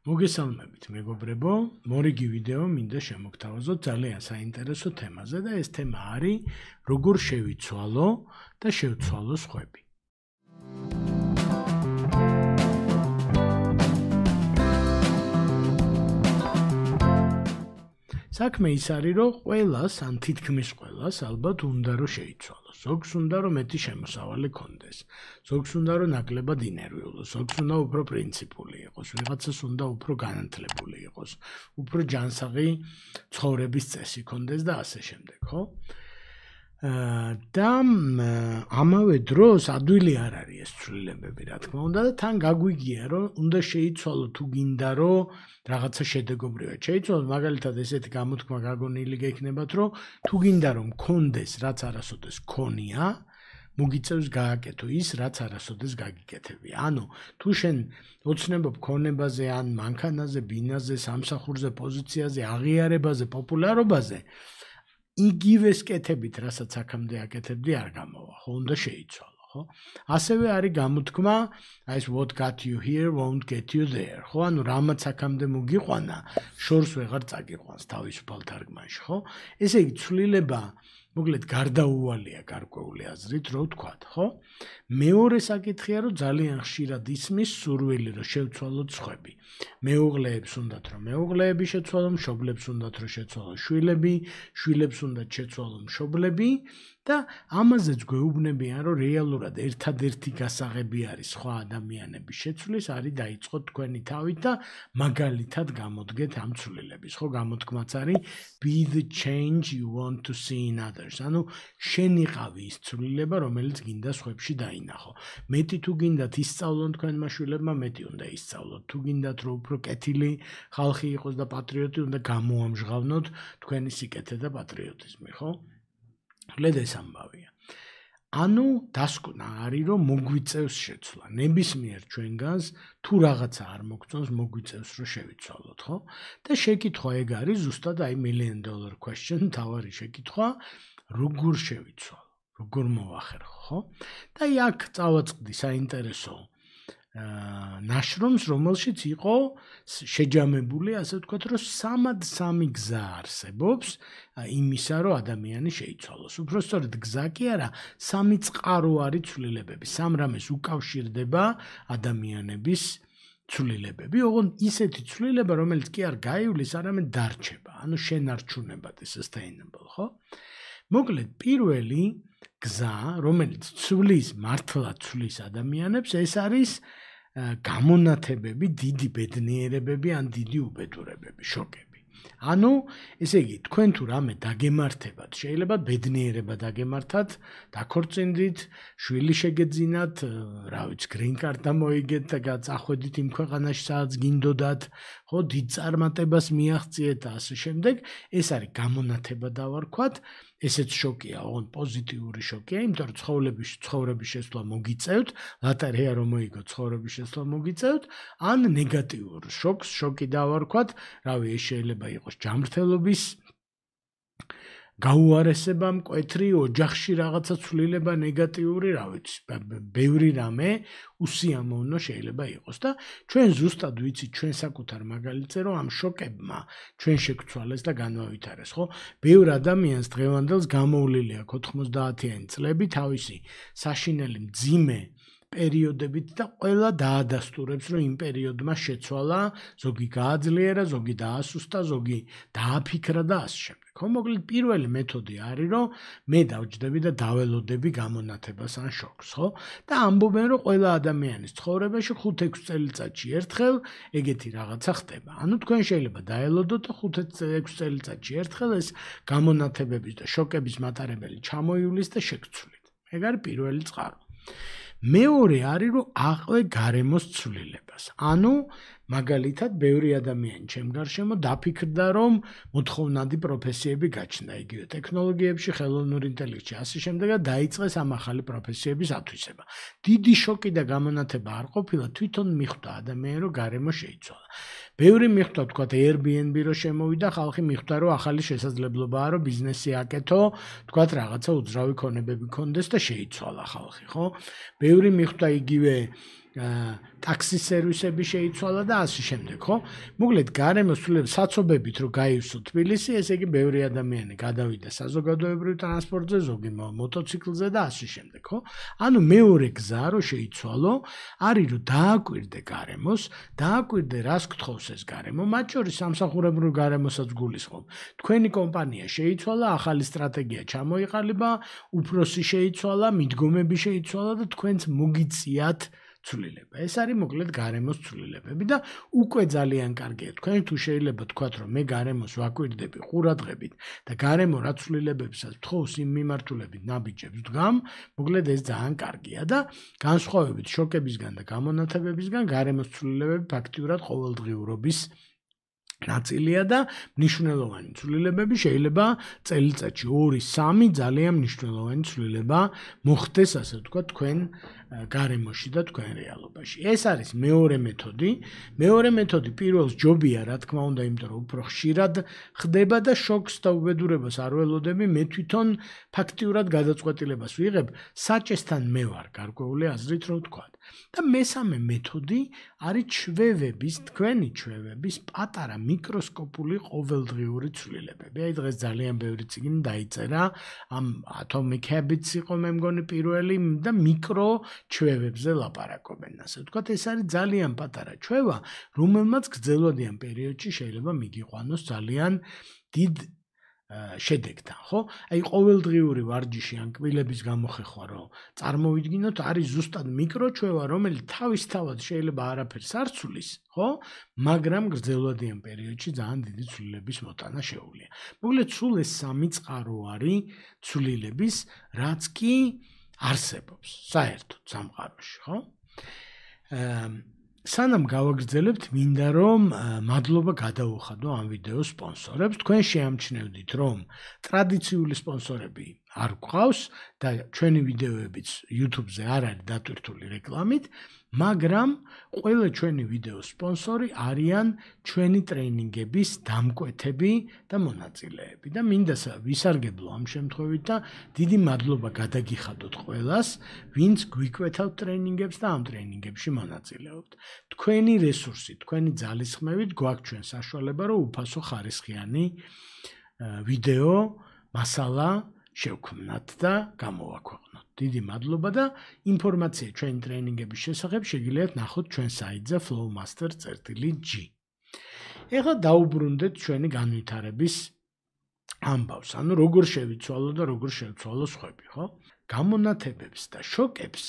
მოგესალმებით მეგობრებო, მორიგი ვიდეო მინდა შემოგთავაზოთ ძალიან საინტერესო თემაზე და ეს თემა არის როგორ შევიცვალო და შევცვალო სხვები. საქმე ის არის, რომ ყველას, ან თითქმის ყველას ალბათ უნდა რომ შეიცვალოს. ზოგს უნდა რომ მეტი შემოსავალი ქონდეს. ზოგს უნდა რომ ნაკლებად ინერვიულოს, ზოგს უნდა უფრო პრინციპული იყოს, ვიღაცას უნდა უფრო განათლებული იყოს, უფრო ჯანსაღი ცხოვრების წესი ქონდეს და ასე შემდეგ, ხო? და ამავე დროს ადვილი არ არის ეს ცვლილებები, რა თქმა უნდა, და თან გაგვიგია, რომ უნდა შეიცვალო თუ გინდა რომ რაღაცა შედეგობრივად შეიცვალოს, მაგალითად ესეთი გამოთქმა გაგონილი გექნებათ, რომ თუ გინდა რომ გქონდეს რაც არასოდეს გქონია, მოგიწევს გააკეთო ის, რაც არასოდეს გაგიკეთებია. ანუ თუ შენ ოცნებობ ქონებაზე, ან მანქანაზე, ბინაზე, სამსახურზე, პოზიციაზე, აღიარებაზე, პოპულარობაზე, იგივეს კეთებით, რასაც აქამდე აკეთებდი, არ გამოვა, ხო, უნდა შეიცვალო, ხო? ასევე არის გამოთქმა, ეს what got you here won't get you there, ხო? ანუ რამაც აქამდე მოგიყვანა, შორს ვეღარ წაგიყვანს თავისუფალ თარგმანში, ხო? ესე იგი, ცვლილება მოკლედ გარდაუვალია გარკვეული აზრით, რო ვთქვათ, ხო? მეორე საკითხია, რომ ძალიან ხშირად ისმის სურვილი, რომ შევცვალოთ სხვები. მეუღლეებს უნდათ, რომ მეუღლეები შეცვალონ, მშობლებს უნდათ, რომ შეცვალონ შვილები, შვილებს უნდათ შეცვალონ მშობლები და ამაზეც გვეუბნებიან, რომ რეალურად ერთადერთი გასაღები არის სხვა ადამიანების შეცვლის, არის დაიწყოთ თქვენი თავით და მაგალითად გამოდგეთ ამ ცვლილების, ხო? გამოთქმაც არის be the change you want to see in others. ანუ შენ იყავი ის ცვლილება, რომელიც გინდა სხვებში დაინახო. მეტი თუ გინდათ ისწავლონ თქვენმა შვილებმა, მეტი უნდა ისწავლოთ. თუ გინდათ რომ უფრო კეთილი ხალხი იყოს და პატრიოტი, უნდა გამოამჟღავნოთ თქვენი სიკეთე და პატრიოტიზმი, ხო? ლედ ეს ამბავია. ანუ დასკვნა არის, რომ მოგვიწევს შეცვლა. ნებისმიერ ჩვენგანს თუ რაღაცა არ მოგწონს, მოგვიწევს რომ შევიცვალოთ, ხო? და შეკითხვა ეგ არის ზუსტად აი $1 million question, თავარი შეკითხვა, როგორ შევიცვალო, როგორ მოვახერხო, ხო? და აი აქ წავაწყდი საინტერესო ნაშრომს, რომელშიც იყო შეჯამებული, ასე ვთქვათ, რომ 3 გზა არსებობს იმისა, რომ ადამიანი შეიცვალოს. უბრალოდ გზა კი არა, 3 წყარო არის ცვლილებები. 3 რამეს უკავშირდება ადამიანების ცვლილებები, ოღონდ ისეთი ცვლილება, რომელიც კი არ გაივლის, არამედ დარჩება. ანუ შენარჩუნებად sustainable, ხო? მოკლედ, პირველი გზა, რომელიც ცვლის, მართლაც ცვლის ადამიანებს, ეს არის გამონათებები, დიდი ბედნიერებები ან დიდი უბედურებები, შოკები. ანუ, ესე იგი, თქვენ თუ რამე დაგემართებათ, შეიძლება ბედნიერება დაგემართათ, დაქორწინდით, შვილი შეგეძინათ, რა ვიცი, green card მოიგეთ და წახვედით იმ ქვეყანაში, სადაც გინდოდათ, ხო, დიდ წარმატებას მიაღწიეთ და ასე შემდეგ. ეს არის გამონათება დავარქვათ. ესეც შოკია, ოღონდ პოზიტიური შოკია, იმიტომ რომ ცხოვრების შესვლა მოგიწევთ, ლატარია რომ მოიგოთ, ცხოვრების შესვლა მოგიწევთ, ან ნეგატიურ შოკს, შოკი დავარქვათ, რავი, ეს შეიძლება იყოს ჯანმრთელობის გაუარესება, მკვეთრი, ოჯახში რაღაცა ცვლილება ნეგატიური, რა ვიცი, ბევრი რამე უსიამოვნო შეიძლება იყოს და ჩვენ ზუსტად ვიცით ჩვენ საკუთარ მაგალითზე, რომ ამ შოკებმა ჩვენ შეგცვალეს და განვავითარეს, ხო? ბევრ ადამიანს დღევანდელს გამოვლილი აქვს 90-იანი წლები თავისი საშინელი მძიმე პერიოდებით და ყველა დაადასტურებს, რომ იმ პერიოდმა შეცვალა, ზოგი გააძლიერა, ზოგი დაასუსტა, ზოგი დააფიქრა და ასე შემდეგ. ხო, მოკლედ პირველი მეთოდი არის, რომ მე დავჯდები და დაველოდები გამონათებას ან შოკს, ხო? და ამბობენ, რომ ყველა ადამიანის ცხოვრებაში 5-6 წელიწადში ერთხელ ეგეთი რაღაცა ხდება. ანუ თქვენ შეიძლება დაელოდოთ და 5-6 წელიწადში ერთხელ ეს გამონათებების და შოკების მატარებელი ჩამოივლის და შეგცვლით. ეგ არის პირველი წყარო. მეორე არის, რომ აყვე გარემოს ცვლილებას. ანუ მაგალითად, ბევრი ადამიანი ჩემ გარშემო დაფიქრდა, რომ მოთხოვნადი პროფესიები გაჩნდა, იგივე ტექნოლოგიებში, ხელოვნურ ინტელექტში, ასე შემდეგ და დაიწყეს ამ ახალი პროფესიების ათვისება. დიდი შოკი და გამონათება არ ყოფილა, თვითონ მიხვდა ადამიანი, რომ გარემო შეიცვალა. ბევრი მიხვდა, თქვათ, Airbnb რო შემოვიდა, ხალხი მიხვდა, რომ ახალი შესაძლებლობაა, რომ ბიზნესი აკეთო, თქვათ, რაღაცა უძრავი ქონებები ქონდეს და შეიცვალა ხალხი, ხო? ბევრი მიხვდა იგივე ტაქსის სერვისები შეიცვალა და ასე შემდეგ, ხო? მოკლედ გარემოს ცვლილება საცობებით რომ გაივსო თბილისი, ესე იგი ბევრი ადამიანი გადავიდა საზოგადოებრივ ტრანსპორტზე, ზოგი მოტოციკლზე და ასე შემდეგ, ხო? ანუ მეორე გზა რომ შეიცვალო, არის რომ დააკვირდე გარემოს, დააკვირდე რას გთხოვს ეს გარემო, მათ შორის სამსახურებრივ გარემოსაც გულისხმობ. თქვენი კომპანია შეიცვალა, ახალი სტრატეგია ჩამოიყალიბა, უფროსი შეიცვალა, მიდგომები შეიცვალა და თქვენც მოგიწიათ ცვლილება. ეს არის მოკლედ გარემოს ცვლილებები და უკვე ძალიან კარგია. თქვენ თუ შეიძლება თქვათ რომ მე გარემოს ვაკვირდები ყურადღებით და გარემო რა ცვლილებებსაც თხოვს იმ მიმართულებით ნაბიჯებს ვდგამ, მოკლედ ეს ძალიან კარგია და განსხვავებით შოკებისგან და გამონათებებისგან გარემოს ცვლილებები ფაქტიურად ყოველდღიურობის ნაწილია და მნიშვნელოვანი ცვლილებები შეიძლება წელიწადში 2-3 ძალიან მნიშვნელოვანი ცვლილება მოხდეს, ასე ვთქვათ, თქვენ გარემოში და თქვენ რეალობაში. ეს არის მეორე მეთოდი. მეორე მეთოდი პირველს ჯობია, რა თქმა უნდა, იმიტომ რომ უფრო ხშირად ხდება და შოკს და უბედურებას არ ველოდები, მე თვითონ ფაქტიურად გადაწყვეტილებას ვიღებ, საჭესთან მე ვარ გარკვეული აზრით რომ ვთქვათ. და მესამე მეთოდი არის ჩვევების, თქვენი ჩვევების პატარა მიკროსკოპული ყოველდღიური ცვლილებები. აი დღეს ძალიან ბევრი წიგნი დაიწერა, ამ Atomic Habits იყო მე მგონი პირველი და მიკრო ჩვევებზე ლაპარაკობენ, ასე ვთქვათ, ეს არის ძალიან პატარა ჩვევა, რომელმაც გრძელვადიან პერიოდში შეიძლება მიგიყვანოს ძალიან დიდ შედეგთან, ხო? აი ყოველდღიური ვარჯიში ან კბილების გამოხეხვა რომ წარმოვიდგინოთ, არის ზუსტად მიკროჩვევა, რომელიც თავისთავად შეიძლება არაფერს არ ცვლის, ხო? მაგრამ გრძელვადიან პერიოდში ძალიან დიდი ცვლილების მოტანა შეუძლია. მოკლედ სულ ეს სამი წყარო არის ცვლილების, რაც კი არსებობს საერთოდ სამყაროში, ხო? სანამ გავაგრძელებთ, მინდა რომ მადლობა გადაუხადო ამ ვიდეოს სპონსორებს. თქვენ შეამჩნევდით, რომ ტრადიციული სპონსორები არ გვყავს და ჩვენი ვიდეოებიც YouTube-ზე არ არის დატვირთული რეკლამით, მაგრამ ყველა ჩვენი ვიდეოს სპონსორი არიან ჩვენი ტრეინინგების დამკვეთები და მონაწილეები და მინდა ვისარგებლო ამ შემთხვევით და დიდი მადლობა გადაგიხადოთ ყველას, ვინც გვიკვეთავთ ტრეინინგებს და ამ ტრეინინგებში მონაწილეობთ. თქვენი რესურსი, თქვენი ძალისხმევით გვაქვს ჩვენ საშუალება, რომ უფასო ხარისხიანი ვიდეო მასალა შევქმნათ და გამოვაქვეყნოთ. დიდი მადლობა და ინფორმაცია ჩვენი ტრეინინგების შესახებ შეგიძლიათ ნახოთ ჩვენ საიტზე flowmaster.g. ეხლა დაუბრუნდეთ ჩვენი განვითარების ამბავს, ანუ როგორ შევიცვალო და როგორ შევცვალო სხვები, ხო? გამონათებებს და შოკებს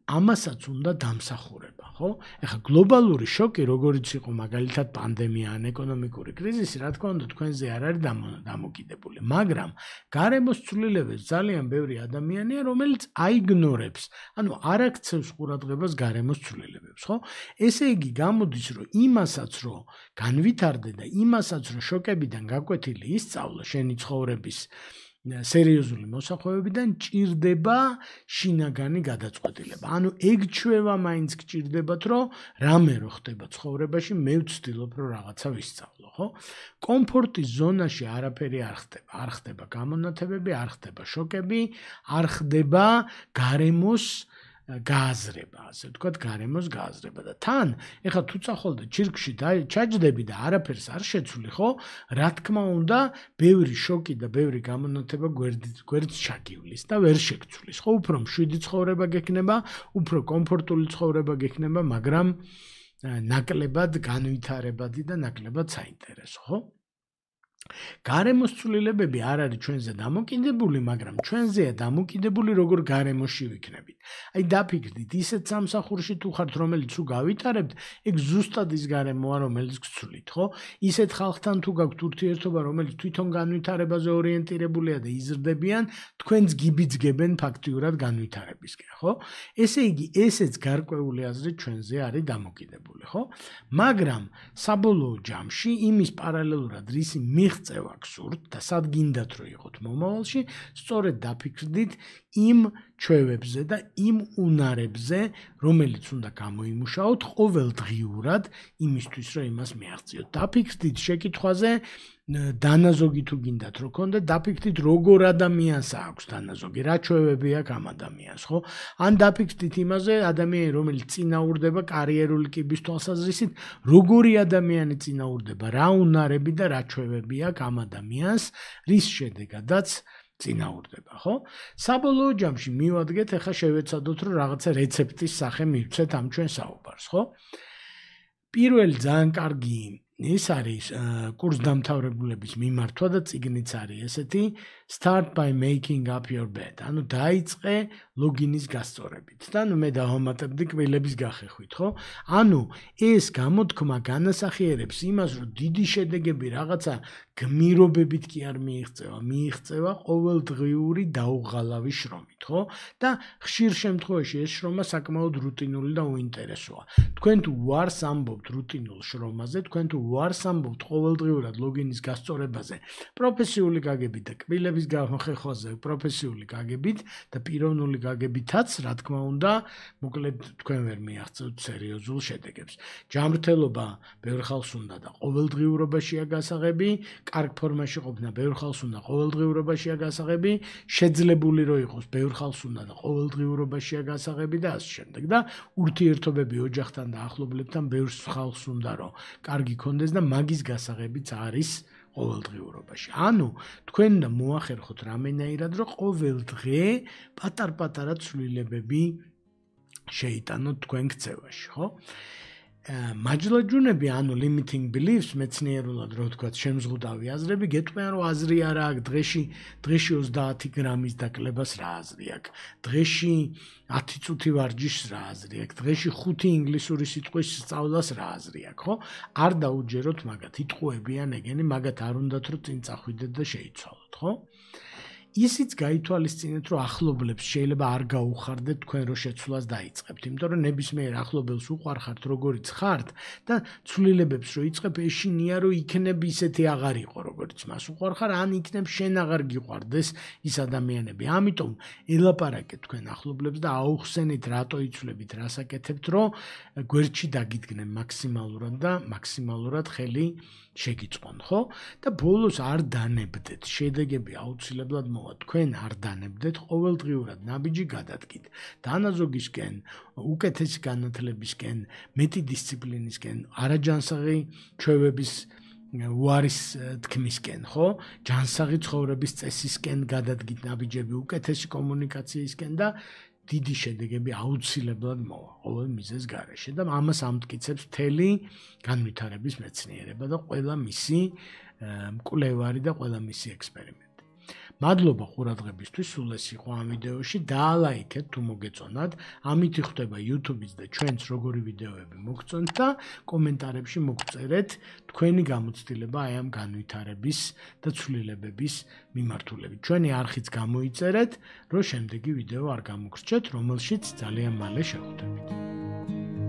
ამასაც უნდა დამსახურება, ხო? ეხლა გლობალური შოკი, როგორიც იყო მაგალითად პანდემია ან ეკონომიკური კრიზისი, რა თქმა უნდა, თქვენზე არ არის დამოკიდებული, მაგრამ გარემოს ცვლილებებს ძალიან ბევრი ადამიანია, რომელიც აიგნორებს, ანუ არ აქცევს ყურადღებას გარემოს ცვლილებებს, ხო? ესე იგი, გამოდის, რომ იმასაც, რომ განვითარდე და იმასაც, რომ შოკებიდან გაკვეთილი ისწავლო შენი ცხოვრების სერიოზული მოსახვევებიდან ჭირდება შინაგანი გადაწყვეტილება. ანუ ეგ ჩვევა მაინც გჭირდებათ, რომ რამე რო ხდება ცხოვრებაში, მე ვცდილობ, რომ რაღაცა ვისწავლო, ხო? კომფორტის ზონაში არაფერი არ ხდება. არ ხდება გამონათებები, არ ხდება შოკები, არ ხდება გარემოს გააზრება, ასე ვთქვათ, გარემოს გააზრება და თან, ეხლა თუ წახვალდე ჩირკში ჩაჯდები და არაფერს არ შეცვლი, ხო? რა თქმა უნდა, ბევრი შოკი და ბევრი გამონათება გვერდს ჩაგივლის და ვერ შეგცვლის, ხო? უფრო მშვიდი ცხოვრება გექნება, უფრო კომფორტული ცხოვრება გექნება, მაგრამ ნაკლებად განვითარებადი და ნაკლებად საინტერესო, ხო? გარემოს ცვლილებები არ არის ჩვენზე დამოკიდებული, მაგრამ ჩვენზეა დამოკიდებული, როგორ გარემოში ვიქნებით. აი დაფიქრდით, ისეთ სამსახურში თუ ხართ, რომელიც თუ გავითარებთ, ეგ ზუსტად ის გარემოა, რომელიც გცვლით, ხო? ისეთ ხალხთან თუ გაქვთ ურთიერთობა, რომელიც თვითონ განვითარებაზე ორიენტირებულია და იზრდებიან, თქვენს გიბიძგებენ ფაქტიურად განვითარებისკენ, ხო? ესე იგი, ესეც გარკვეული აზრით ჩვენზე არის დამოკიდებული, ხო? მაგრამ საბოლოო ჯამში იმის პარალელურად რისი მიღწევა გსურთ და სად გინდათ რომ იყოთ მომავალში, სწორედ დაფიქრდით იმ ჩვევებზე და იმ უნარებზე, რომელიც უნდა გამოიმუშაოთ ყოველდღიურად იმისთვის, რომ იმას მიაღწიოთ. დაფიქრდით შეკითხვაზე, დანაზოგი თუ გინდათ რომ გქონდეთ, დაფიქრდით როგორ ადამიანს აქვს დანაზოგი, რა ჩვევები აქვს ამ ადამიანს, ხო? ან დაფიქრდით იმაზე, ადამიანი რომელიც წინაურდება კარიერული კიბის თვალსაზრისით, როგორი ადამიანი წინაურდება, რა უნარები და რა ჩვევები აქვს ამ ადამიანს, რის შედეგადაც წინაურდება, ხო? საბოლოო ჯამში მივადგეთ, ახლა შევეცადოთ, რომ რაღაცა რეცეპტის სახე მივცეთ ამ ჩვენ საუბარს, ხო? პირველი ძალიან კარგი ის არის კურსდამთავრებულების მიმართვა და წიგნიც არის ესეთი Start by making up your bed. ანუ დაიწყე ლოგინის გასწორებით. და მე დავამატებდი კბილების გახეხვით, ხო? ანუ ეს გამოთქმა განასახიერებს იმას, რომ დიდი შედეგები რაღაცა გმირობებით კი არ მიიღწევა ყოველდღიური დაუღალავი შრომით, ხო? და ხშირ შემთხვევაში ეს შრომა საკმაოდ რუტინული და უინტერესოა. თქვენ თუ უარს ამბობთ რუტინულ შრომაზე, თქვენ თუ უარს ამბობთ ყოველდღიურად ლოგინის გასწორებაზე, პროფესიული გაგებით და კბილების გახეხვაზე პროფესიული გაგებით და პიროვნული გაგებითაც, რა თქმა უნდა, მოკლედ თქვენ ვერ მიაღწევთ სერიოზულ შედეგებს. ჯანმრთელობა ბევრ ხალხს უნდა და ყოველდღიურობაშია გასაღები, კარგ ფორმაში ყოფნა ბევრ ხალხს უნდა ყოველდღიურობაშია გასაღები, შეძლებული რო იყოს ბევრ ხალხს უნდა და ყოველდღიურობაშია გასაღები და ასე შემდეგ. და ურთიერთობები ოჯახთან და ახლობლებთან ბევრ ხალხს უნდა რომ კარგი ქონდეს და მაგის გასაღებიც არის ყოველდღიურობაში. ანუ თქვენ უნდა მოახერხოთ რამენაირად, რომ ყოველ დღე პატარ-პატარა ცვლილებები შეიტანოთ თქვენ ქცევაში, ხო? მაჯლაჯუნები, ანუ limiting beliefs, მეცნიერულად რო ვთქვათ, შემზღუდავი აზრები, გეტყვიან რომ აზრი არა აქვს, დღეში 30 გრამის დაკლებას რა აზრი აქვს, დღეში 10 წუთი ვარჯიშს რა აზრი აქვს, დღეში 5 ინგლისური სიტყვის სწავლას რა აზრი აქვს, ხო? არ დაუჯეროთ მაგათ, იტყუებიან ეგენი, მაგათ არ უნდათ რომ წინ წახვიდეთ და შეიცვალოთ, ხო? ისიც გაითვალისწინეთ, რომ ახლობლებს შეიძლება არ გაუხარდეთ თქვენ რო შეცვლას დაიწყებთ, იმიტომ რომ ნებისმიერ ახლობელს უყვარხართ როგორიც ხართ და ცვლილებებს რო იწყებ, ეშინია რომ იქნებ ისეთი აღარ იყო როგორიც მას უყვარხარ, ან იქნებ შენ აღარ გიყვარდეს ის ადამიანები. ამიტომ ელაპარაკეთ თქვენ ახლობლებს და აუხსენით რატო იცვლებით, რას აკეთებთ, რომ გვერდში დაგიდგნენ მაქსიმალურად და მაქსიმალურად ხელი შეგიწყონ, ხო? და ბოლოს არ დანებდეთ, შედეგები აუცილებლად თქვენ არ დანებდეთ, ყოველდღიურად ნაბიჯი გადადგით. დანაზოგისკენ, უკეთესი განათლებისკენ, მეტი დისციპლინისკენ, არაჯანსაღი ჩვევების უარის თქმისკენ, ხო? ჯანსაღი ცხოვრების წესისკენ გადადგით ნაბიჯები, უკეთესი კომუნიკაციისკენ და დიდი შედეგები აუცილებლად მოვა ყოველ მიზეზს გარეშე და ამას ამტკიცებს მთელი განვითარების მეცნიერება და ყველა მისი მკვლევარი და ყველა მისი ექსპერიმენტი. მადლობა ყურადღებისთვის, სულ ეს იყო ამ ვიდეოში, დაალაიქეთ თუ მოგეწონათ, ამით იხდება YouTube-იც და ჩვენც როგორი ვიდეოები მოგწონთ და კომენტარებში მოგწერეთ თქვენი გამოცდილება აი ამ განვითარების და ცვლილებების მიმართულებით. ჩვენი არხიც გამოიწერეთ, რომ შემდეგი ვიდეო არ გამოგრჩეთ, რომელშიც ძალიან მალე შევხვდებით.